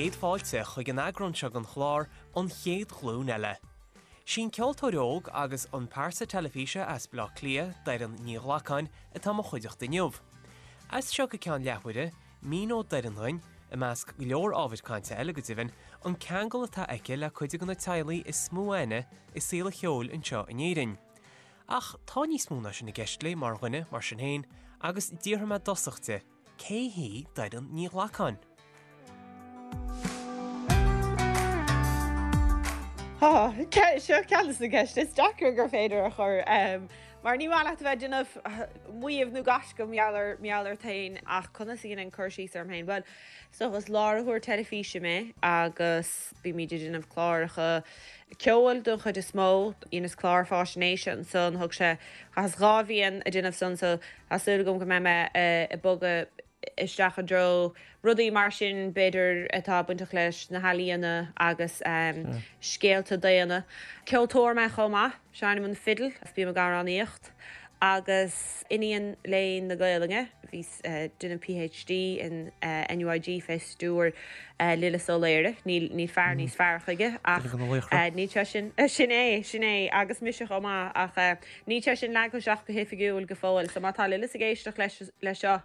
chéad fáilte chuig an eagrán seo den chlár An Chéad Ghlúin Eile. Sí an ceoltóir óg agus an pearsa teilifíse as Baile Átha Cliath, Doireann Ní Ghlacáin, atá i mo chuideachta inniu. As seo go ceann leathuaire, míneoidh Doireann dhuinn, i measc go leor ábhair cainte eile go deimhin, an ceangal atá aici le cuid de na teaghlaigh is mó aithne i saol an cheoil anseo in Éirinn. Ach tá níos mó ná sin i gceist léi mar dhuine, mar sin féin, agus d'iarr mé i dtosach di, Cé hí Doireann Ní Ghlacáin? Tá, seo ceann de na ceisteanna is deacra gur féidir a chur, mar ní maith leat a bheith ag déanamh maíomh nó gaisce mar gheall ort féin, ach conas a dhéanfainn cur síos orm féin? Bhuel, is dócha is láithreoir teilifíse mé agus bímid ag déanamh cláracha ceoil don chuid is mó. Dheineas clár fáisnéise ansan, thug sé, chaitheas 2 bhliain ag déanamh san so Tá súil agam go mbeidh mé ag bogadh isteach i dtreo rudaí mar sin, b'fhéidir, atá bainteach leis na healaíona agus scéalta daonna. Ceoltóir mé chomh maith, seinnim an fidil agus bím ag amhránaíocht. Agus iníon léinn na Gaelainne, bhíos ag déanamh PhD in NUIG fé stiúir Lillis Ó Laoire, níl fear níos fearr chuige ach níl sé sin, sin é, sin é, agus mise chomh maith ach. Níl sé sin leagtha isteach go hoifigiúil go fóill, so má tá Lillis ag éisteacht leis leis seo,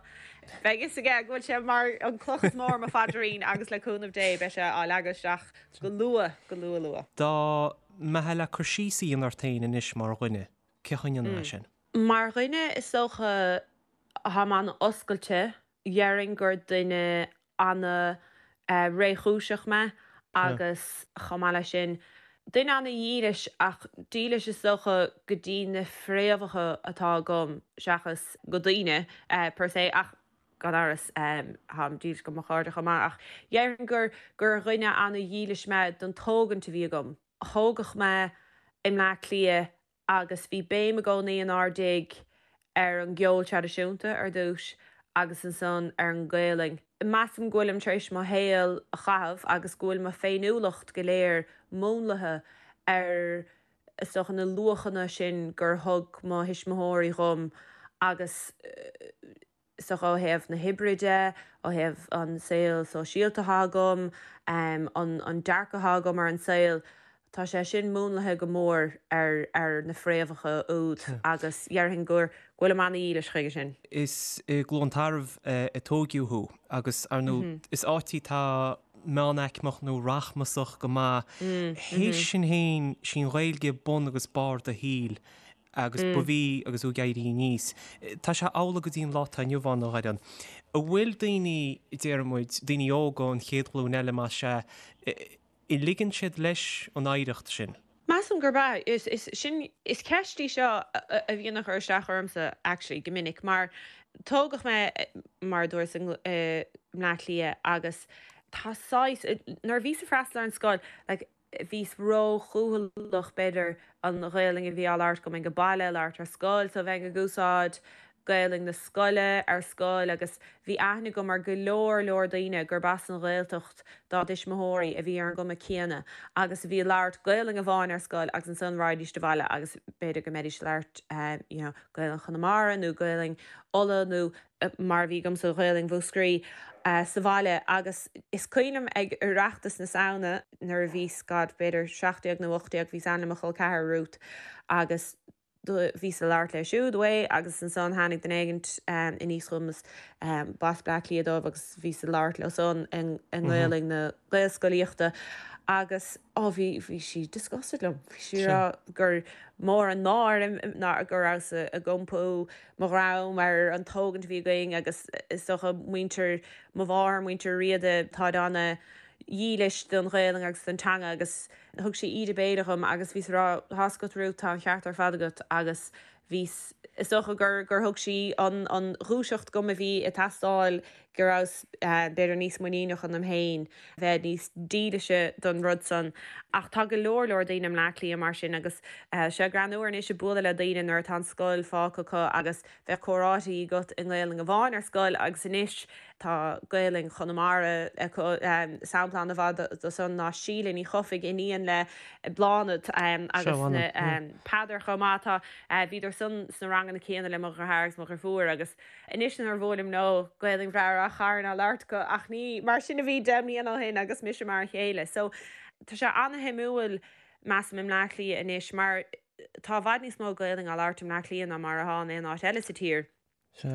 beidh fhios aige go bhfuil sé mar an cloch is mó ar mo phaidrín agus le cúnamh Dé beidh sé á leagadh isteach go luath, go luath luath. Dá mbeifeá le cur síos a dhéanamh ort féin anois mar dhuine, cén chaoi a ndéanfá sin? Mar dhuine is dócha táim an-oscailte, Dhéarfainn gur duine ana-réchúiseach mé agus chomh maith leis sin, duine ana-dhílis ach dílis is dócha go dtí na fréamhacha atá agam seachas go daoine per se ach gan amhras táim dílis go mo chairde chomh maith ach dhéarfainn gur gur dhuine ana-dhílis mé don tógaint a bhí agam. Tógadh mé i mBleá Cliath agus bhí béim i gcónaí inár dtigh ar an gceol traidisiúnta ar dtús agus ansan ar an nGaelainn. Measaim go bhfuilim tar éis mo shaol a chaitheamh agus go bhfuil mo féiniúlacht go léir múnlaithe ar is dócha na luachanna sin gur thug mo thuismitheoirí dhom agus is dócha ó thaobh na hoibre de, ó thaobh an saol sóisialta atá agam, an dearcadh atá agam ar an saol, tá sé sin múnlaithe go mór ar ar na fréamhacha úd agus dhéarfainn go bhfuilim ana-dhílis chuige sin. Is i gCluain Tarbh a tóigeadh thú agus, ar ndóigh, is áit í atá meánaicmeach nó rachmasach go maith. Théis sin féin, sí an Ghaeilge bun agus barr do shaoil. agus ba bhí agus tú ag éirí aníos. Tá sé amhlaidh go dtí an lá atá inniu ann, a Dhoireann. An bhfuil daoine, déarfaidh muid, daoine óga, an chéad ghlúin eile más ea, an ligeann siad leis an oidhreacht sin? Measaim gurb ea. Is, is, sin, is ceist í seo a bhíonn ag cur isteach ormsa actually go minic mar tógadh mé, mar a dúras, i mBleá Cliath agus tá saghas, nuair a bhíos ag freastal ar an scoil, like, bhíos ró-chúthaileach, b'fhéidir, an Ghaelainn a bhí á labhairt agam ag an baile a labhairt ar scoil, so bheinn ag úsáid Gaelainn na scoile ar scoil agus bhí aithne agam ar go leor leor daoine gurb as an Ghaeltacht dá dtuismitheoirí a bhí ar an gcuma céanna agus a bhí ag labhairt Gaelainn amháin ar scoil agus ansan raghaidís abhaile agus b'fhéidir go mbeidís ag labhairt you know Gaelainn Chonamara nó Gaelainn Uladh nó mar a bhí agamsa, Gaelainn Mhúscraí, sa bhaile agus is cuimhin liom ag Oireachtas na Samhna nuair a bhíos, God, b'fhéidir 17 nó 18, bhíos ann le mo chol ceathar, Ruth, agus bhíos ag labhairt léi siúd away agus ansan tháinig duine éigint aníos chugam is b'as Bleá Cliath dóibh agus bhíos ag labhairt leo san i nGaelainn na Gaelscolaíochta agus oh bhí, bhí sí disgusted liom, bhí sí ag rá gur mór an náire ná go rabhas ag iompú mo dhroim ar an tógaint a bhí againn agus is dócha muintir mo mháthar, muintir Riada, táid ana dhílis don Ghaelainn agus don teanga agus thug sí íde béil dhom agus bhíos ag rá tá's agat Ruth, tá an ceart ar fad agat agus bhíos, is dócha gur, gur thug sí an, an dhúiseacht dhom a bhí ag teastáil go rabhas b'fhéidir níos muiníneach ionam féin, bheith níos dílise don rud san. Ach tá go leor leor daoine i mBleá Cliath mar sin agus tá sé greannmhar anois ag bualadh le daoine nuair atá an scoil fágtha acu agus bheadh comhráití agat i nGaelainn amháin ar scoil agus anois tá Gaelainn Chonamara acu. Sampla an-mhaith de san ná Síle Ní Chofaigh, iníon le Bláthnaid agus Peadar chomh maith. Tá, bhíodar san. ansan sna ranganna céanna le mo dheartháir agus mo dheirfiúr agus anois nuair a bhuailim leo, Gaelainn bhreá Ráth Chairn á labhairt acu ach ní mar sin a bhí 10 mbliana ó shin agus mise mar a chéile. So tá sé ana-shuimiúil measaim i mBleá Cliath anois mar tá i bhfad níos mó Gaelainn á labhairt i mBleá Cliath ná mar atá in aon áit eile sa tír.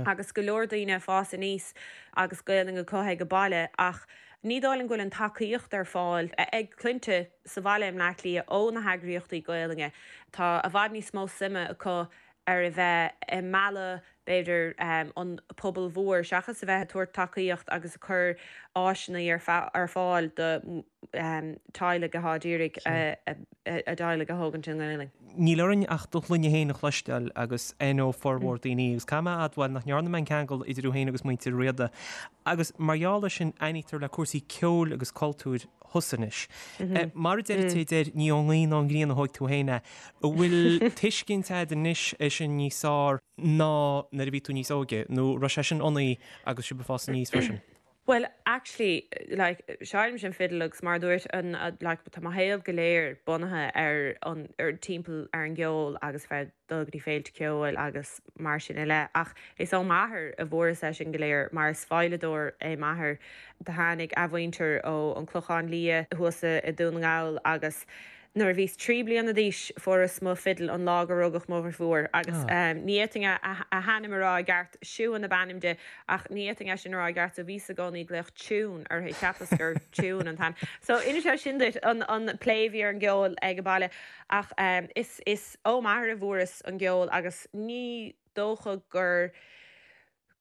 Agus go leor daoine ag fás aníos agus Gaelainn acu ag an baile ach ní dóigh liom go bhfuil an tacaíocht ar fáil ag clainne sa bhaile i mBleá Cliath ó na heagraíochtaí Gaelainne. Tá i bhfad níos mó suime acu ar a bheith ag mealladh b'fhéidir an pobal mhór seachas a bheith ag tabhairt tacaíocht agus ag cur áiseanna ar fáil do teaghlaigh atá ag iarraidh a dteaghlaigh a thógaint i nGaelainn. Níl orainn ach do shloinne féin a chloisteáil agus aithneoidh formhór daoine, agus caithfidh mé a admháil nach ndearna mé an ceangal idir thú féin agus muintir Riada. Agus mar gheall air sin, aithnítear le cúrsaí ceoil agus cultúir thusa anois. Mar a deir an té a deir, ní ón ngaoth ná ón ngrian a thóig tú féin é. An bhfuil tuiscint agat anois air sin níos fearr ná nuair a bhí tú níos óige, nó raibh sé sin ionaibh agus sibh ag fás aníos freisin? Bhuel actually like seinnimse an fidil agus mar a dúirt an like tá mo shaol go léir bunaithe ar an ar timpeall ar an gceol agus bheith ag dul go dtí féilte ceoil agus mar sin i leith ach is ó m'athair a bhfuaireas é sin go léir mar is veidhleadóir é m'athair. Do tháinig a mhuintir ó an Clochán Liath thuas i Dún na nGall agus Nuair a bhíos 3 bliana d'aois fuaireas mo fidil an lá gur rugadh mo dhrifiúr agus ní fhéadfainn a hainm a rá i gceart, Siún ab ainm di ach ní fhéadfainn é sin a rá i gceart so bhíos i gcónaí ag glaoch Tiún uirthi, cheapas gur Tiún an t-ainm. So inis é sin duit an an plé a bhí ar an gceol ag an baile ach is is ó m'athair a bhfuaireas an gceol agus ní dócha gur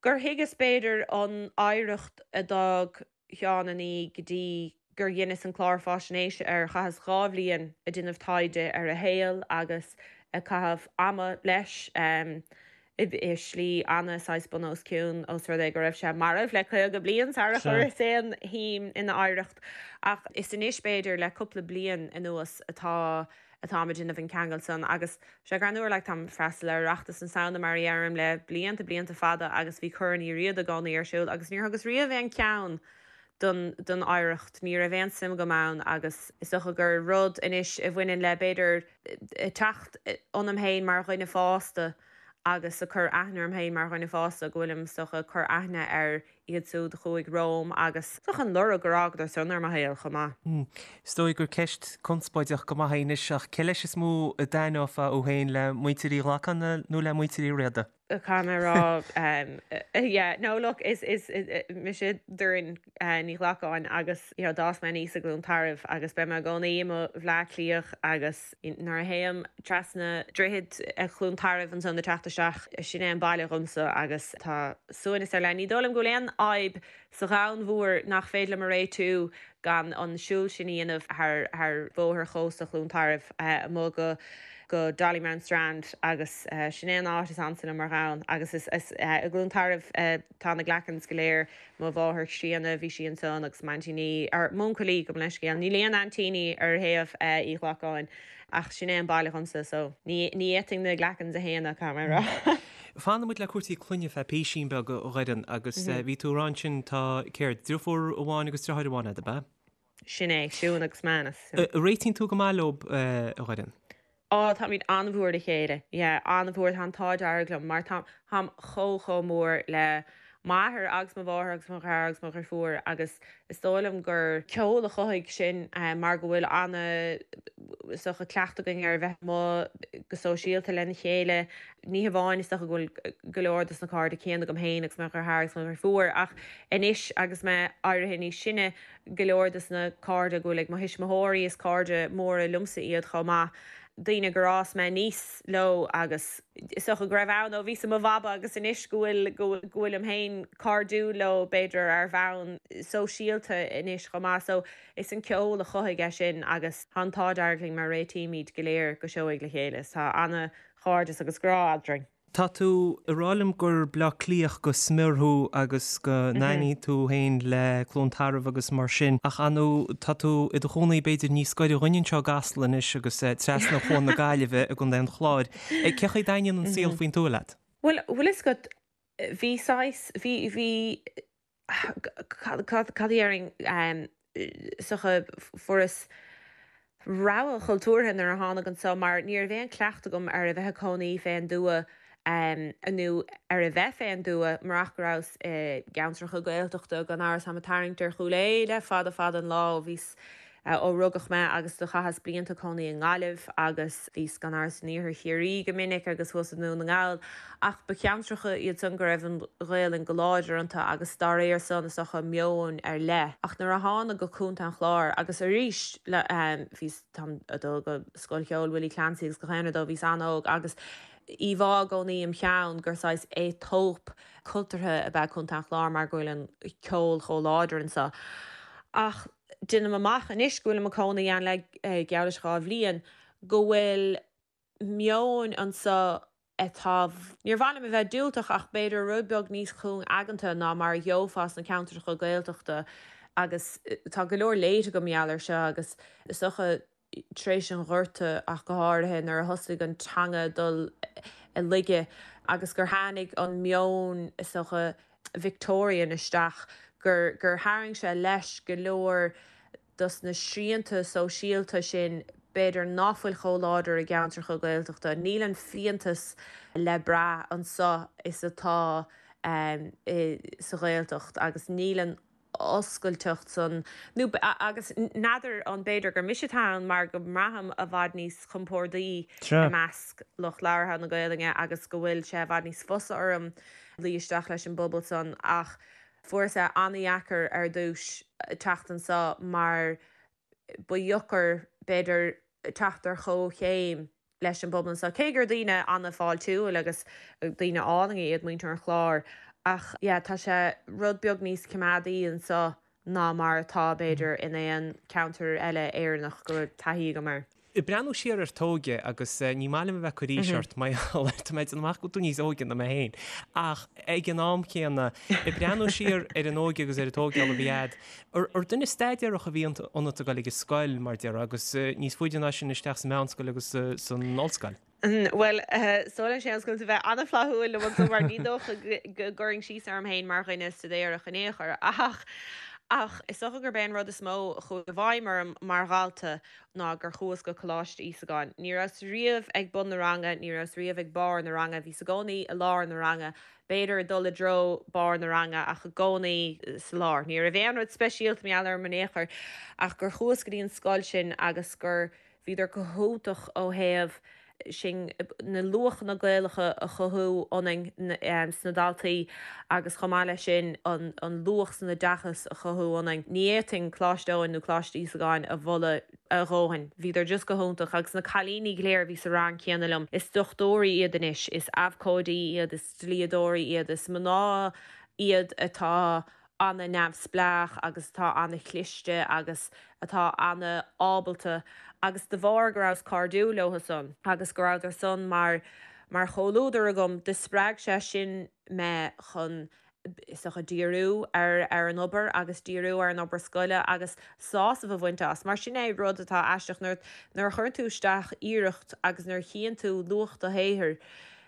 gur thuigeas b'fhéidir an oidhreacht a d'fhág Sheán an Fhí go dtí gur dheineas an clár fáisnéise air. Chaitheas 2 bhliain ag déanamh taighde ar a shaol agus ag caitheamh ama leis i slí ana saghas bun os cionn os rud é go raibh sé marbh le 50 bliain sara chuireas aon shuim ina oidhreacht. Ach is anois b'fhéidir le cúpla bliain anuas atá atáim ag déanamh an ceangal san agus sé greannmhar like táim ag freastal ar Oireachtas na Samhna mar a dheirim le blianta blianta fada agus bhí Corn Uí Riada i gcónaí ar siúl agus níor thugas riamh aon cheann don don oidhreacht ní raibh aon suim agam ann agus is dócha gur rud anois a bhaineann le b'fhéidir teacht ionam féin mar dhuine fásta agus ag cur aithne orm féin mar dhuine fásta go bhfuilim is dócha ag cur aithne ar iad siúd a chuaigh romham agus is dócha an lorg gur fhágadar san ar mo shaol chomh maith. Is dóigh gur ceist conspóideach go maith í anois ach cé leis is mó a d'aithneofá thú féin, le muintir Uí Ghlacáin nó le muintir Uí Riada? Caithfidh mé a rá yeah no look is is mise Doireann Ní Ghlacáin agus you know d'fhás mé aníos i gCluain Tarbh agus beidh mé i gcónaí i mo Bhleá Cliathach agus Nuair a théim trasna droichead Chluain Tarbh ansan ag teacht isteach, sin é an baile dhomsa agus tá suaimhneas ar leith. Ní dóigh liom go bhfuil aon fhadhb sa dhomhan mhór nach féidir liom a réitiú gan an siúl sin a dhéanamh thar bhóthar chósta Chluain Tarbh amuigh go go Dollymount Strand agus sin é an áit is ansa liom ar dhomhan agus is i gCluain Tarbh tá na Glackens go léir. Mo mháthair chríonna, bhí sí ansan agus m'aintíní, or m'uncailí, gabh mo leithscéal, níl aon aintíní ar thaobh Uí Ghlacáin ach sin é an baile dhomsa so ní fhéadfainn na Glackens a shéanadh, caithfidh mé a rá. Fanfaidh muid le cúrsaí clainne feadh písín beag, a Dhoireann, agus bhí tú ag rá ansin tá, céard, driofúr amháin agus driotháir amháin agat, ab ea? Sin é, Siún agus Manus. Réitíonn tú go maith leo, a Dhoireann? Á, táimid an-mhór le chéile. Yeah, an-mhór. Tá an t-ádh dearg liom mar táim chomh, chomh mór le m'athair agus mo mháthair agus mo dheartháir agus mo dheirfiúr agus is dóigh liom gur ceol a chothaigh sin mar go bhfuil ana, is dócha, cleachtadh againn ar a bheith amuigh go sóisialta lena chéile. Ní hamháin is dócha go bhfuil go leor dos na cairde céanna agam féin agus mo dheartháir agus mo dheirfiúr ach anois agus mé éirithe níos sine, go leor dos na cairde go bhfuil ag mo thuismitheoirí, is cairde móra liomsa iad chomh maith, daoine gur fhás mé aníos leo agus is dócha go raibh ann ó bhíos i mo bhaba agus anois go bhfuil, go bhfuilim féin cairdiúil leo b'fhéidir ar bhonn sóisialta anois chomh maith. So is an ceol a chothaigh é sin agus tá an t-ádh dearg linn mar réitímid go léir go seoigh le chéile is tá ana-chairdeas agus grá eadrainn. Tá tú ag rá liom gur Bleá Cliathach go smior thú agus go n-aithníonn tú féin le Cluain Tarbh agus mar sin, ach ar ndóigh tá tú i do chónaí b'fhéidir níos gaire dhuinn anseo i gCasla anois agus trasna Chuan na Gaillimhe i gContae an Chláir. Cé chaoi a dtaitníonn an saol faoin tuath leat? Bhuel, bhfuil fhios agat, bhí saghas, bhí, bhí, cad, cad, cad a déarfainn, is dócha, fuaireas. Rogha chultúrtha nuair a thánag anso mar ní raibh aon cleachtadh agam ar a bheith ag cónaí fén dtuath nó ar a bheith fén dtuath murach go rabhas i gceantracha Gaeltachta gan amhras táim ag tarraingt ar Chúil Aodha le fada fada an lá ó bhíos ó rugadh mé agus do chaitheas blianta ag cónaí i nGaillimh agus bhíos gan amhras in iarthar Chiarraí go minic agus thuas i nDún na nGall ach ba cheantracha iad san go raibh an Ghaelainn go láidir iontu agus dá réir san is dócha meon ar leith. Ach nuair a thánag go Contae an Chláir agus arís le bhíos táim ag dul go Scoil Cheoil Willie Clancy agus gach aon rud ó bhíos an-óg agus íomhá i gcónaí im cheann gur saghas Aetóip cultúrtha ab ea Contae an Chláir mar go bhfuil an ceol chomh láidir anso. Ach deinim amach anois go bhfuilim ag cónaí ann le geall leis 2 bhliain go bhfuil meon anso atá, níor mhaith liom a bheith diúltach ach b'fhéidir rud beag níos cúng-aigeanta ná mar a gheofá sna ceantracha Gaeltachta agus tá go leor léite agam mar gheall air seo agus is dócha tar éis an Ghorta ach go háirithe nuair a thosaigh an teanga dul i laige agus gur tháinig an meon is dócha Victorian isteach gur gur tharraing sé leis go leor dos na srianta sóisialta sin b'fhéidir ná fuil chomh láidir i gceantracha Gaeltachta. Níl an fiántas le brath anso is atá sa Ghaeltacht agus níl an oscailteacht san, nó agus n'fheadar an b'fhéidir gur mise atá ann mar go mbraithim i bhfad níos compórdaí i measc lucht labhartha na Gaelainne agus go bhfuil sé i bhfad níos fusa orm luí isteach leis an bpobal san ach Fuaireas é an-dheacair ar dtús teacht anso mar ba dheocair, b'fhéidir, teacht ar chomhchéim leis an bpobal anso, cé gur daoine an-fháiltiúil agus daoine álainne iad muintir an Chláir. Ach yeah, tá sé rud beag níos coimeádaí anso ná mar atá, b'fhéidir, in aon cheantar eile Éireannach go raibh taithí agam air. Ag breathnú siar ar t'óige, agus ní maith liom a bheith ag cur aois ort, mar gheall air, tá mé ag déanamh amach go bhfuil tú níos óige ná mé féin, ach ag an am céanna, ag breathnú siar ar an óige agus ar an tógáil a bhí a'd, ar duine staidéarach a bhí ionat ag dul ag an scoil, mar déarfá, agus níos faide ná sin isteach sa mheánscoil agus san ollscoil? Bhuel, is dóigh liom, Séamus, go bhfuil tú a bheith an-fhlaithiúil liom anso mar ní dócha go gcuirfinn síos orm féin mar dhuine staidéarach in aon chor. Ach, ach is dócha gurb é an rud is mó a chuaigh i bhfeidhm orm mar dhalta ná gur chuas go Coláiste Íosagáin. Ní rabhas riamh ag bun na ranga, ní rabhas riamh ag barr na ranga, bhíos i gcónaí i lár na ranga, b'fhéidir ag dul i dtreo barr na ranga ach i gcónaí sa lár. Ní raibh aon rud speisialta mar gheall orm in aon chor ach gur chuas go dtí an scoil sin agus gur Bhíodar go hiontach ó thaobh sin, na luachanna Gaelacha a chothú ionainn sna daltaí agus chomh maith leis sin an luach san oideachas a chothú ionainn. Ní fhéadfainn Coláiste Eoin nó Coláiste Íosagáin a mholadh a dhóthain. Bhíodar just go hiontach agus na cailíní go léir a bhí sa rang céanna liom, is dochtúirí iad anois, is abhcóidí iad, is dlíodóirí iad, is mná iad atá ana-neamhspleách agus atá ana-chliste agus atá ana-ábalta agus de bharr go rabhas cairdiúil leotha san agus go rabhadar san mar mar chomhluadar agam do spreag sé sin mé chun is dócha díriú ar ar an obair agus díriú ar an obair scoile agus sásamh a bhaint as mar sin é rud atá aisteach nuair nuair a chuireann tú isteach iarracht agus nuair a chíonn tú luach do shaothair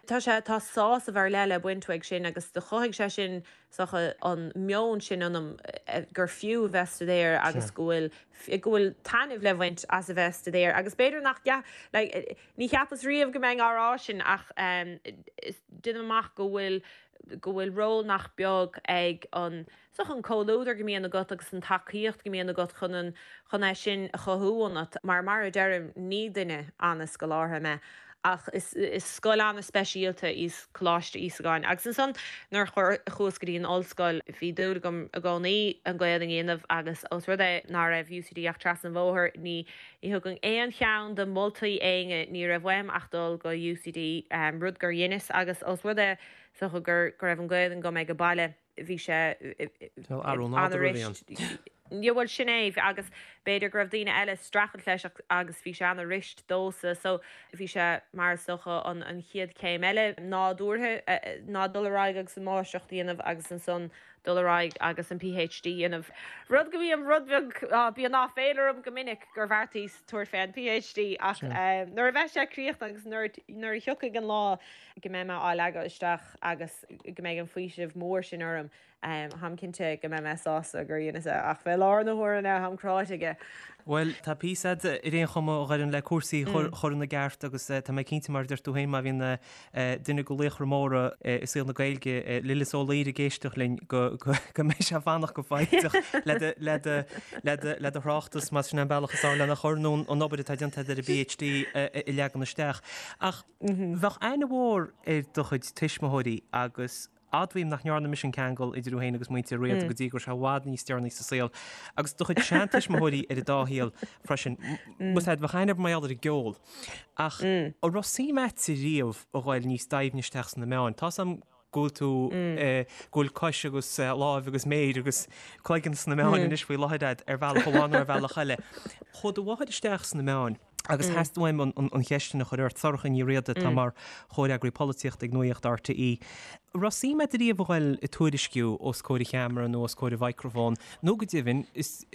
tá sé tá sásamh ar leith le baint uaidh sin agus do chothaigh sé sin is dócha, an meon sin ionam gur fiú a bheith ag staidéar agus go bhfuil, go bhfuil taitneamh le bhaint as a bheith ag staidéar agus b'fhéidir nach, like, ní cheapas riamh go mbeinn á rá sin ach deinim amach go bhfuil, go bhfuil ról nach beag ag an, is dócha an comhluadar go mbíonn agat agus an tacaíocht go mbíonn agat chun an, chun é sin a chothú ionat mar, mar a deirim, ní duine an-scolártha mé. Ach is scoil an-speisialta í Coláiste Íosagáin. Agus ansan nuair a chuas go dtí an ollscoil bhí dúil agam i gcónaí an Ghaelainn a dhéanamh agus ós rud é ná raibh UCD ach trasna an bhóthair ní thugfainn aon cheann de mholtaí éinne, ní raibh uaim ach dul go UCD, rud gur dheineas agus ós rud é is dócha go raibh an Ghaelainn agam ag an baile. bhí sé an-fhuirist. Yeah bhuel sin é agus b'fhéidir go raibh daoine eile ag streachailt leis agus bhí sé an-fhuirist domhsa so bhí sé mar is dócha an an chéad chéim eile nádúrtha ná dul ar aghaidh agus an máistreacht a dhéanamh agus ansan dul ar aghaidh agus an PhD a dhéanamh. Rud go mbím rud beag, bíonn áiféala orm go minic gur bheartaíos tabhairt fé an PhD ach nuair a bheidh sé críochnaithe agus nuair nuair a thiocfaidh an lá go mbeidh mé á leagadh isteach agus go mbeidh an faoiseamh mór sin orm. Táim cinnte go mbeidh mé sásta gur dheineas é, ach fé láthair na huaire táim cráite aige. Bhuel, tá píosa a'd ar aon chuma a Dhoireann le cúrsaí a chur ina gceart agus tá mé cinnte mar a deir tú féin má bhíonn duine de laochra móra i saol na Gaeilge, Lillis Ó Laoire ag éisteacht linn go mbeidh sé ag fanacht go foighdeach le do thráchtas más sin an bealach is fearr lena chur nó an obair atá déanta agat ar an bPhD a leagan isteach. Ach bheadh aithne mhór ar do chuid tuismitheoirí agus Admhaím nach ndearna mise an ceangal idir thú féin agus muintir Riada go dtí go raibh sé i bhfad níos deireanaí sa saol. Agus do chuid seantuismitheoirí ar an dá shaol freisin. Bhuel, bheadh aithne mar gheall ar an gceol. Ach an raibh suim a'dsa riamh a ghoil níos doimhne isteach sna meáin? Tá's a'm go bhfuil tú, go bhfuil cois agus láimh agus méir agus cloigeann sna meáin anois faoi láthair a'd ar bhealach amháin nó ar bhealach eile. Chuaigh do mháthair isteach sna meáin. Agus theastaigh uaim an cheist sin a chur ort, Sorcha Ní Riada atá mar chomhfhreagraí polaitíochta ag Nuacht RTÉ. An raibh suim a'd riamh a ghoil ag tuairisciú os comhair an cheamara nó os comhair an mhicreafóin, nó go deimhin, is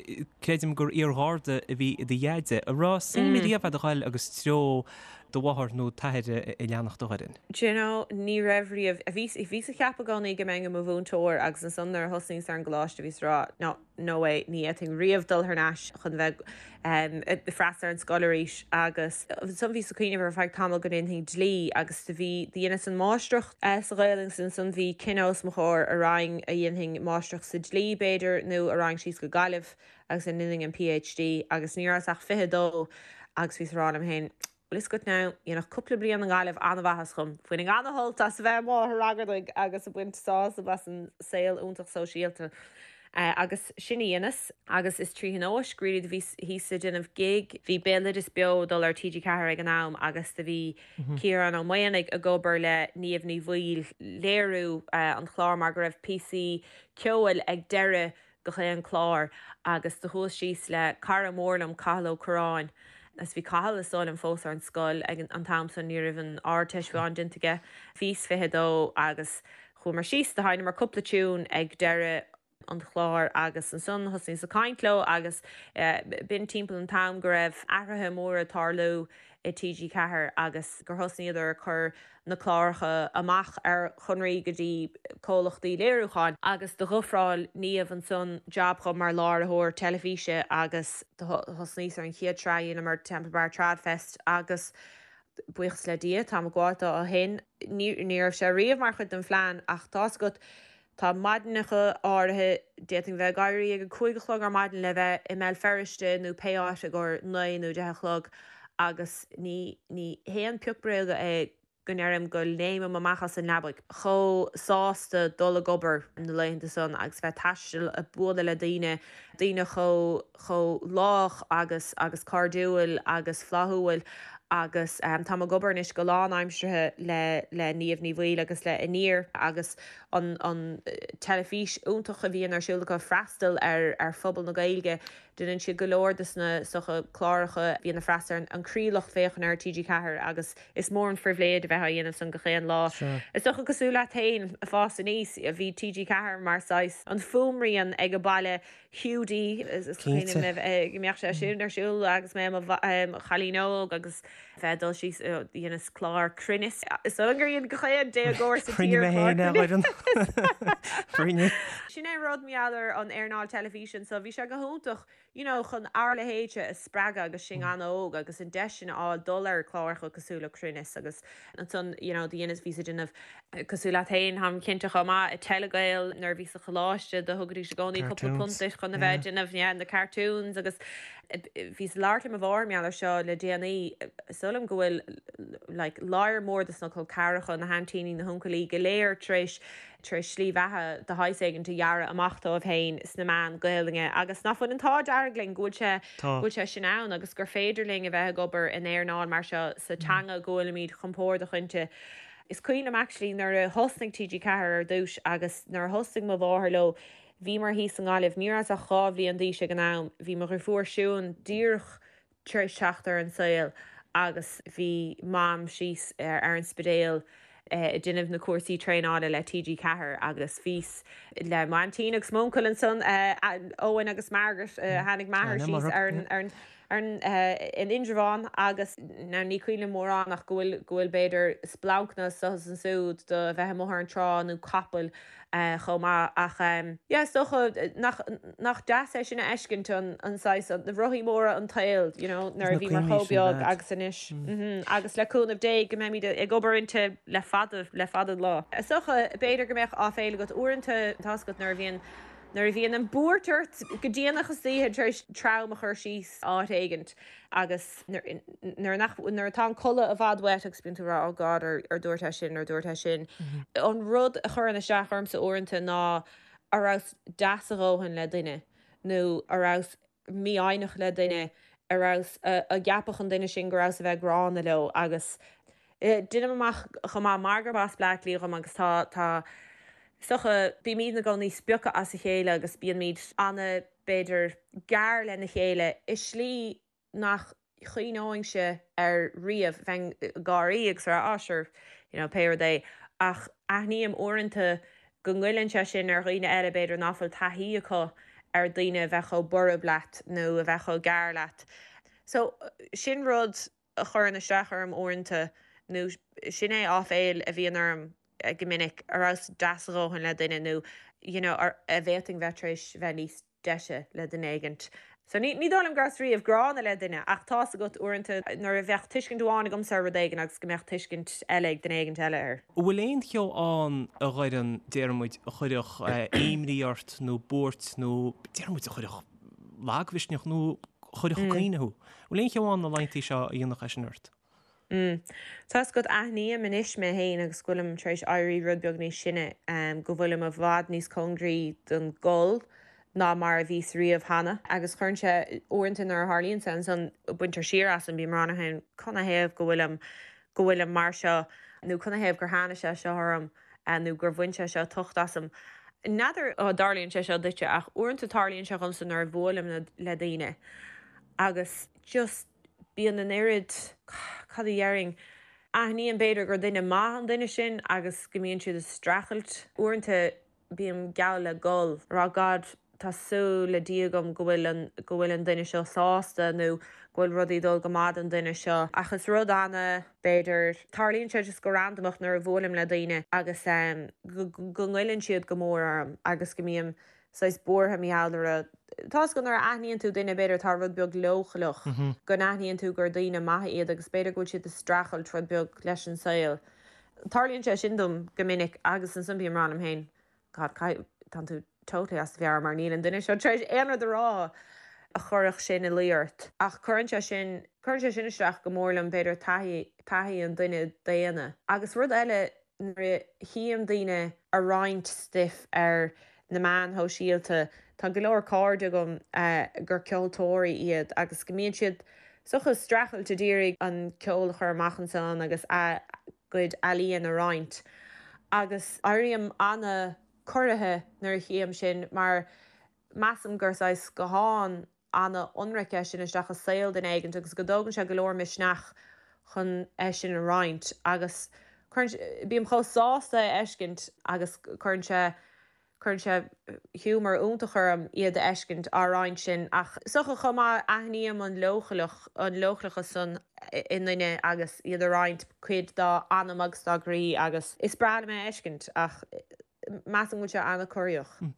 creidim gur iar-gharda a bhí i do dheaide. An raibh suim riamh a'd a ghoil agus treo do mháthar nó t'athair a leanacht a Dhoireann? Do you know, ní raibh riamh. Bhíos ag ceapadh i gcónaí go mbeinn i mo mhúinteoir agus ansan nuair a thosnaíos ar an gcoláiste bhíos ag rá, no, no way, ní fhéadfainn riamh dul thar n-ais chun bheith ag freastal ar an scoil arís agus ansan bhíos ag cuimhneamh ar feadh tamaill go ndéanfainn dlí agus do bhí, do dheineas an máistreacht sa Ghaelainn agus ansan bhí cinneadh os mo chomhair a raghainn, a dhéanfainn máistreacht sa dlí b'fhéidir nó a raghainn síos go Gaillimh agus a ndéanfainn an PhD agus ní rabhas ach 22 agus bhíos ag rá liom féin, Bhfuil fhios agat now, dhéanfadh cúpla bliain i nGaillimh an-mhaitheas dhom. Bhainfinn an-shult as a bheith amuigh ag ragairdigh agus ag baint sásamh as an saol iontach sóisialta. Agus sin a dheineas. Agus is trí thionóisc, really, do bhíos thíos ag déanamh gig. Bhí Béaloideas Beo ag dul ar TG4 ag an am agus do bhí Ciarán Ó Maonaigh ag obair le Niamh Ní Bhaoill léiriú an chláir mar go raibh píosaí ceoil ag deireadh gach aon chlár agus do chuas síos le cara mór liom, Cathal Ó Curráin, agus bhí Cathal is dóigh liom fós ar an scoil ag an t-am san, ní raibh an Ardteist fiú amháin déanta aige, bhíos 22 agus chuamar síos, do sheinneamar cúpla tiún ag deireadh an chláir agus ansan thosnaíos ag caint leo agus b'in timpeall an t-am go raibh athruithe móra ag tarlú i TG4 agus gur thosnaíodar ag cur na cláracha amach ar chonraí go dtí comhlachtaí léiriúcháin. Agus d'ofráil Niamh ansan jab dhom mar láithreoir teilifíse agus do thosnaíos ar an chéad sraith a dheineamar, Temple Bar Tradfest, agus buíochas le Dia táim ag gabháil dó ó shin. Ní raibh sé riamh mar chuid den phlean ach tá's agat, Tá maidineacha áirithe, d'fhéadfainn bheith ag éirí ag a 5 a chlog ar maidin le bheith i mBéal Feirste nó pé áit i gcomhair 9 nó 10 a chlog agus ní, ní haon pioc bréaga é go ndeirim go léimim amach as an leabaidh chomh sásta dul ag obair na laethanta san agus bheith ag taisteal ag bualadh le daoine, daoine chomh, chomh lách agus, agus cairdiúil agus flaithiúil agus táim ag obair anois go lánaimseartha le, le Niamh Ní Bhaoill agus le Aniar agus an an teilifís iontach a bhíonn ar siúl acu freastal ar ar phobal na Gaeilge. Déanann siad go leor de sna is dócha cláracha a bhíonn ag freastal ar an croílucht féachana ar TG4 agus is mór an phribhléid a bheith á dhéanamh san gach aon lá. Is dócha cosúil leat féin ag fás aníos bhí TG4 mar saghas an fuaimrian ag an baile Hiúdaí is cuimhin liom go mbeadh sé sin ar siúl agus mé i mo chailín óg agus bheith ag dul síos dheineas clár Cruinneas. Is dóigh liom gur dhein gach aon déagóir sa tír clár Cruinneas. Sin é an rud mar gheall ar an earnáil teilifíse anso, bhí sé go hiontach you know chun ár leithéidse a spreagadh agus sinn an-óg agus an deis sin a fháil dul ar chláracha cosúil le Cruinneas agus ansan you know do dheineas bhíos ag déanamh Cosúil leat féin, táim cinnte chomh maith, i Telegael nuair a bhíos sa choláiste do thugaidís i gcónaí cúpla punt duit chun a bheith ag déanamh yeah na cartoons agus bhíos ag labhairt le mo mháthair mar gheall ar seo le déanaí, is dóigh liom go bhfuil like lear mór dos na col ceathracha, na haintíní, na huncailí go léir tar éis tar éis slí bheatha de shaghas éigint a dhearadh amach dóibh féin sna meáin Gaelainne agus nach bhfuil an t-ádh dearg linn go bhfuil sé go bhfuil sé sin ann agus gur féidir linn a bheith ag obair in earnáil mar seo sa teanga go bhfuilimid compordach inti. Is cuimhin liom actually nuair a thosnaigh TG4 ar dtús agus nuair a thosnaigh mo mháthair leo, bhíomar thíos i nGaillimh, ní rabhas ach 2 bhliain d'aois ag an am, bhí mo dhriofúr Siún díreach tar éis teacht ar an saol agus bhí Mam síos ar an Spidéal ag déanamh na cúrsaí traenála le TG4 agus bhíos le m'aintín agus m'uncail ansan, Eoin agus Margaret, tháinig m'athair síos ar an. Ar an, in Indreabhán agus now ní cuimhin liom mórán ach go bhfuil, go bhfuil b'fhéidir splancanna anso is ansúd do bheith amuigh ar an trá nó capaill chomh maith ach yeah is dócha nach, nach deas é sin a fheiscint an, an saghas, na rothaí móra an tsaoil you know nuair a bhíomar chomh beag agus anois mm agus le cúnamh Dé go mbeimid ag obair inti le fada, le fada an lá. Is dócha b'fhéidir go mbeadh áiféil agat uaireanta tá's agat nuair a bhíonn Nuair a bhíonn an bhuairt ort go déanach istoíche tar éis tram a chur síos áit éigint agus nuair nach, nuair atá an codladh i bhfad uait agus bíonn tú ag rá oh God ar ar dúirt é sin, ar dúirt é sin. An rud a chuireann isteach ormsa uaireanta ná a rabhas deas a dhóthain le duine nó a rabhas mífhoighneach le duine, a rabhas, a gceapfadh an duine sin go rabhas a bheith gránna leo agus deinim amach chomh maith mar gurb as Bleá Cliath dhom agus tá, tá, is dócha, bímid ina gcónaí spioctha as a chéile agus bíonn ana, b'fhéidir, gearr lena chéile i slí nach chuimhneoinnse air riamh, bheinn ag gáirí agus ag rá ah sure, you know, pé rud é ach aithním uaireanta go ngoilleann sé sin ar dhaoine eile b'fhéidir ná fuil taithí acu ar daoine a bheith chomh borb leat nó a bheith chomh gearr leat. So sin rud a chuireann isteach orm uaireanta nó sin é áiféil a bhíonn orm go minic, a rabhas deas a dhóthain le duine nó you know a bhféadfainn bheith tar éis bheith níos deise le duine éigint. So ní ní dóigh liom go rabhas riamh gránna le duine ach tá's agat uaireanta nuair a bheadh tuiscint amháin agamsa ar rud éigin agus go mbeadh tuiscint eile ag duine éigint eile air. An bhfuil aon cheo ann a Dhoireann, déarfaidh muid, a chuirfeadh imní ort nó buairt nó déarfaidh muid a chuirfeadh lagmhisneach nó a chuirfeadh ag caoineadh thú? An bhfuil aon cheo ann na laethanta seo a dhéanfadh é sin ort? Mm. Tá's agat, aithním anois mé féin agus go bhfuilim tar éis éirí rud beag níos sine, go bhfuilim i bhfad níos cóngaraí don gcol ná mar a bhíos riamh cheana. Agus cuireann sé, uaireanta nuair a tharlaíonn sé ansan, baintear siar asam, bím ag rá liom féin, canathaobh go bhfuilim, go bhfuilim mar seo, nó canathaobh gur tháinig sé seo orm, nó gur bhain sé seo tocht asam. N'fheadar an dtarlaíonn sé seo duitse ach uaireanta tarlaíonn sé dhomsa nuair a bhuailim le daoine agus just, bíonn an oiread, cad a dhéarfainn, aithním b'fhéidir gur duine maith an duine sin agus go mbíonn siad ag streachailt. Uaireanta bím geall le gol, ag rá God tá súil le Dia agam go bhfuil an, go bhfuil an duine seo sásta nó go bhfuil rudaí ag dul go maith don duine seo. Ach is rud ana, b'fhéidir, tarlaíonn sé just go randamach nuair a bhuailim le daoine agus go, go ngoilleann siad go mór orm agus go mbím saghas buartha mar gheall orthu. Tá's agat nuair a aithníonn tú duine b'fhéidir atá rud beag leochaileach, go n-aithníonn tú gur daoine maithe iad agus b'fhéidir go bhfuil siad ag streachailt rud beag leis an saol. Tarlaíonn sé sin dom go minic agus ansan bím ag rá liom féin, God, caithfidh, tánn tú totally as do mheabhair mar níl an duine seo tar éis aon rud a rá a chuirfeadh sin ina luí ort. Ach cuireann sé sin, cuireann sé sin isteach go mór liom b'fhéidir taithí, taithí an duine daonna. Agus rud eile, Nuair a chím daoine a' roinnt stuif ar na meáin shóisialta, tá go leor cairde agam gur ceoltóirí iad agus go mbíonn siad is dócha ag streachailt a d'iarraidh an ceol a chur amach ansan agus a gcuid ealaíon a roinnt. Agus éirím ana-corraithe nuair a chím sin mar measaim gur saghas scathán ana-ionraic é sin isteach i saol duine éigint agus go dtógann sé go leor misneach chun é sin a roinnt agus cuireann, bím chomh sásta é a fheiscint agus cuireann sé, cuireann sé giúmar iontach orm iad a fheiscint á roinnt sin ach is dócha chomh maith aithním an leochaileach, an leochaileachas san i nduine agus iad a roinnt cuid dá anam agus dá gcroí agus is breá liom é a fheiscint ach measaim go bhfuil sé an-corraitheach.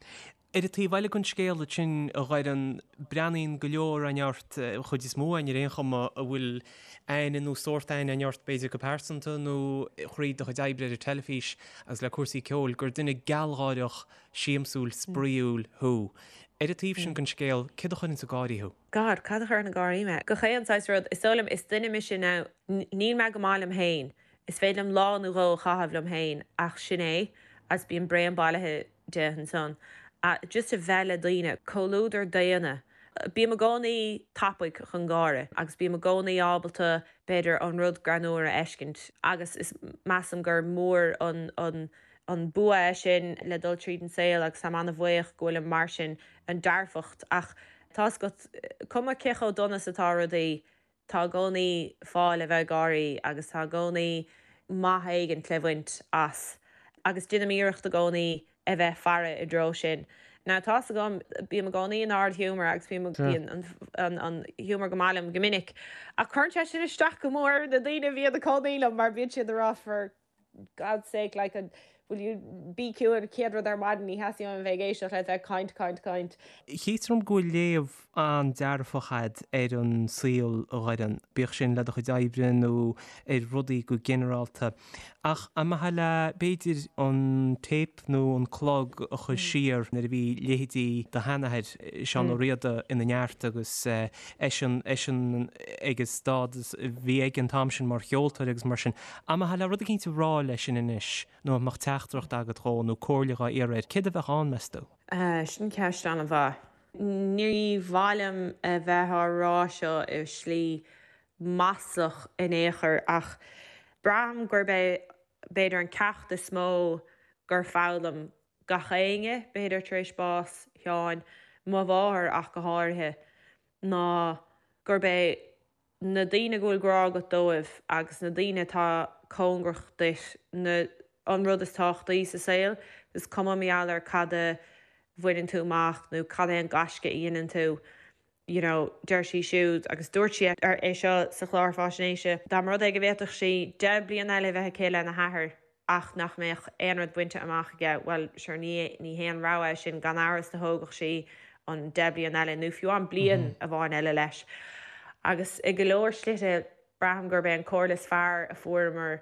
Ar an taobh eile den scéal ansin, a Dhoireann, breathnaíonn go leor againn ort, an chuid is mó againn ar aon chuma, a bhfuil aithne nó sórt aithne againn ort, b'fhéidir go pearsanta nó thríd do chuid oibre ar an teilifís agus le cúrsaí ceoil, gur duine gealgháireach, siamsúil, spraíúil thú. Ar an taobh sin den scéal, céard a chuireanns ag gáirí thú? God, cad a chuireann ag gáirí mé? Gach aon saghas rud. Is dóigh liom, is duine mise now, níl mé go maith liom féin. Is féidir liom lá nó dhó a chaitheamh liom féin ach sin é agus bíonn braon bailithe de ansan. Just a bheith le daoine, comhluadar daonna. Bím i gcónaí tapaidh chun gáire agus bím i gcónaí ábalta b'fhéidir an rud greannmhar a fheiscint agus is measaim gur mór an an an bua é sin le dul tríd an saol agus táim ana-bhuíoch go bhfuilim mar sin, an dearfacht ach tá's agat, cuma cé chomh dona is atá rudaí, Tá i gcónaí fáth le bheith ag gáirí agus tá i gcónaí maith éigint le bhaint as agus déanaim iarracht i gcónaí a bheith ag faire i dtreo sin. Now tá's agam, bím i gcónaí in ard-ghiúmar agus bím, bíonn an an giúmar go maith liom go minic, ach cuireann sé sin isteach go mór ar na daoine a bhíonn ina gcónaí liom mar bíonn siad ag rá for God's sake like an will you bí ciúin an chéad rud ar maidin ní theastaíonn uaim a bheith ag éisteacht leat bheith ag caint, caint, caint. Chítear dom go bhfuil léamh an-dearfach a'd ar an saol, a Dhoireann, bíodh sin le do chuid oibre nó ar rudaí go ginearálta. Ach an mbeifeá le, b'fhéidir, an téip nó an clog a chur siar nuair a bhí leithéidí do sheanathair, Seán Ó Riada, ina neart agus eisean, eisean ag an stádas a bhí aige an t-am sin mar cheoltóir agus mar sin. An mbeifeá le rud eicínt a rá leisean anois nó an mbeadh teachtaireacht agat dhó nó comhairle dhá iarraidh air, céard a bheadh ann, meas tú? Sin ceist an-mhaith. Ní mhaith liom a bheith á rá seo i slí maslach in aon chor ach braithim gurb é b'fhéidir an ceacht is mó gur foghlaim gach éinne, b'fhéidir tar éis bás Sheáin, mo mháthair ach go háirithe, ná gurb é na daoine go bhfuil grá agat dóibh agus na daoine atá cóngarach duit na an rud is tábhachtaí sa saol. Is cuma mar gheall ar cad a bhaineann tú amach nó cad é an gaisce a dhéanann tú, you know, deir sí siúd, agus dúirt sí é seo sa chlár fáisnéise, dá mba rud é go bhféadfadh sí 10 bliana eile a bheith aici lena hathair ach nach mbeadh aon rud bainte amach aige, bhuel, sure, ní, ní haon rogha é sin, gan amhras do thógfadh sí an 10 bliana eile, nó fiú amháin bliain amháin eile leis. Agus i go leor slite, braithim gurb é an comhairle is fearr a fuaireamar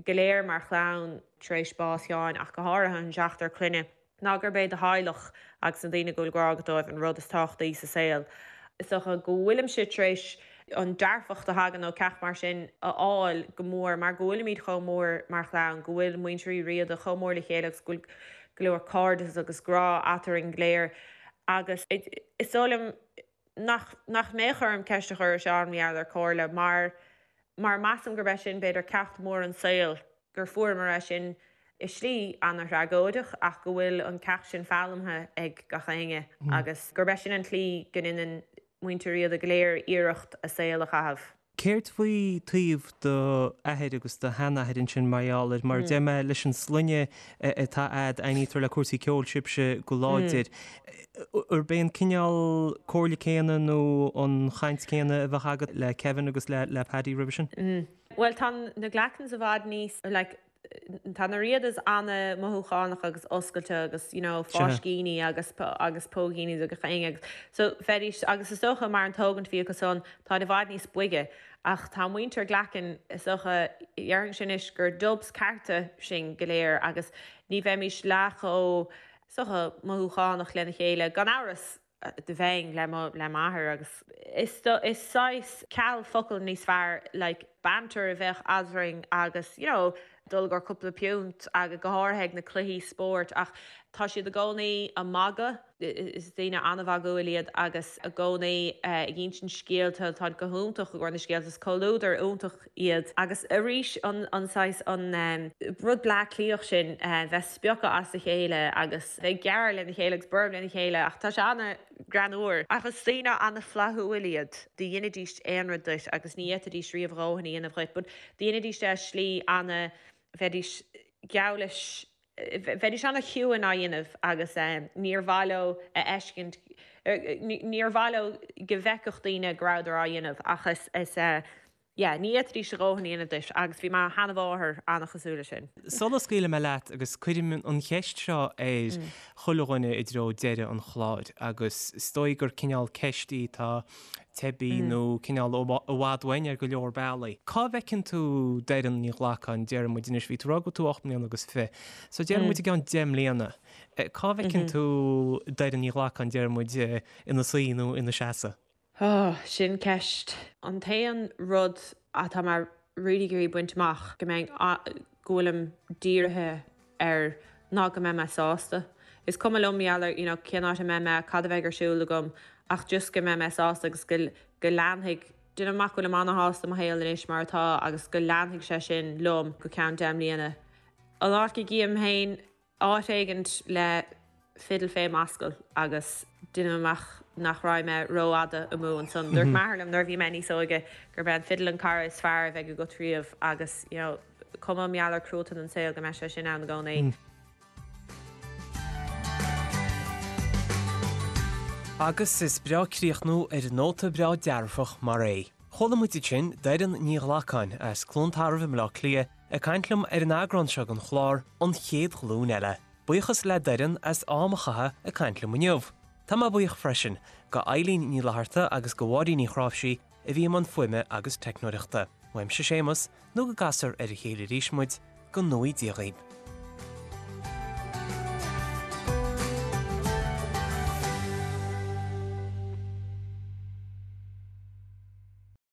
go léir mar chlann tar éis bás Sheáin, ach go háirithe an seachtar clainne, ná gurb é do theaghlach agus na daoine go bhfuil grá agat dóibh an rud is tábhachtaí sa saol. Is dócha go bhfuilimse tar éis an dearfacht a thagann ó ceacht mar sin a fháil go mór mar go bhfuilimid chomh mór mar chlann, go bhfuil muintir Uí Riada chomh mór le chéile agus go bhfuil go leor cairdeas agus grá eatarinn go léir agus is dóigh liom nach nach mbeadh orm ceist a chur ar Sheán mar gheall ar comhairle mar mar measaim gurb é sin b'fhéidir ceacht mór an saoil, gur fuaireamar é sin i slí ana-thragóideach ach go bhfuil an ceacht sin foghlamtha ag gach éinne agus gurb é sin an tslí go ndéanann muintir Riada go léir iarracht a saol a chaitheamh. Céard faoi taobh do athair agus do sheanathair ansin mar gheall ar, mar a deir mé, leis an sloinne atá a'd, aithnítear le cúrsaí ceoil sibhse go láidir. Arb é an cineál comhairle céanna nó an chaint céanna a bheadh agat le Kevin agus le Paddy roimhe sin? Bhuel tá na Glackens i bhfad níos, like, Tá na Riadas ana-mhothúchánach agus oscailte agus you know fáiscíní agus agus póigíní do gach éinne agus so bheidís agus is dócha mar an tógaint a bhí acu san táid i bhfad níos boige ach tá muintir Glacken is dócha déarfainnse anois gur dubs cearta sinn go léir agus ní bheimís leath chomh is dócha mothúchánach lena chéile gan amhras. do bheinn le mo le m'athair agus is is saghas ceal focal níos fearr like banter a bheadh eadrainn agus you know dul i gcomhair cúpla piúnt agus go háirithe ag na cluichí spóirt ach tá siad i gcónaí ag magadh is daoine an-mhagúil iad agus i gcónaí ag insint scéalta táid go hiontach i gcomhair na scéalta is comhluadar iontach iad agus arís an an saghas an rud Bleá Cliathach sin bheith spiocadh as a chéile agus bheith ag gearradh lena chéile agus borb lena chéile ach tá sé an-ghreannmhar. Ach is daoine an-fhlaithiúil iad, do dheinidís aon rud duit agus ní fhéadfaidís riamh a dhóthain a dhéanamh dhuit but do dheinidís é i slí ana, bheidís geall leis, bheidís ana-chiúin á dhéanamh agus níor mhaith leo a fheiscint, níor mhaith leo go bhfeicfeadh daoine go rabhadar á dhéanamh ach is, is. Yeah, ní fhéadfaidís a dhóthain a dhéanamh duit agus bhí mo sheanmháthair an-chosúil leis sin. Sula scaoilfidh mé leat, agus cuirim an cheist seo ar chuile dhuine i dtreo deireadh an chláir, agus is dóigh gur cineál ceist í atá teibí nó cineál i bhfad uainn ar go leor bealaí. Cá bhfeiceann tú Doireann Ní Ghlacáin, déarfaidh muid anois, bhí tú ag rá go bhfuil tú 8 mbliana agus fiche, so déarfaidh muid i gceann 10 mbliana, cá bhfeiceann tú Doireann Ní Ghlacáin, déarfaidh muid, ina suí nó ina seasamh? Oh, sin ceist. An t-aon rud atá mé really ag iarraidh baint amach, go mbeinn, go bhfuilim dírithe air ná go mbeidh mé sásta. Is cuma liom mar gheall ar, you know, cén áit a mbeidh mé, cad a bheidh ar siúl agam, ach just go mbeidh mé sásta agus go, go leanfaidh, déanaim amach go bhfuilim ana-shásta i mo shaol anois mar atá agus go leanfaidh sé sin liom go ceann 10 mbliana. An áit go gcím féin áit éigint le fidil fé m'ascaill agus déanaim amach nach raghaidh mé rófhada amú ansan. Dúirt m'athair liom nuair a bhí mé níos óige gurb é an fidil an cara is fearr a bheidh agat riamh agus, you know, cuma mar gheall ar cruatan an saol go mbeidh sé sin ann i gcónaí. Agus is breá críochnú ar nóta breá dearfach mar é. Chuala muid ansin Doireann Ní Ghlacáin as Cluain Tarbh i mBleá Cliath ag caint liom ar an eagrán seo den chlár An Chéad Ghlúin Eile. Buíochas le Doireann as am a chaitheamh ag caint liom inniu. Tá mé buíoch freisin go Eilín Ní Fhlatharta agus go Mháirín Ní Chráimhsí a bhí i mbun fuaime agus teicneoireachta. Uaimse Séamus, nó go gcasfar ar a chéile arís muid, go ngnóthaí Dia dhaoib.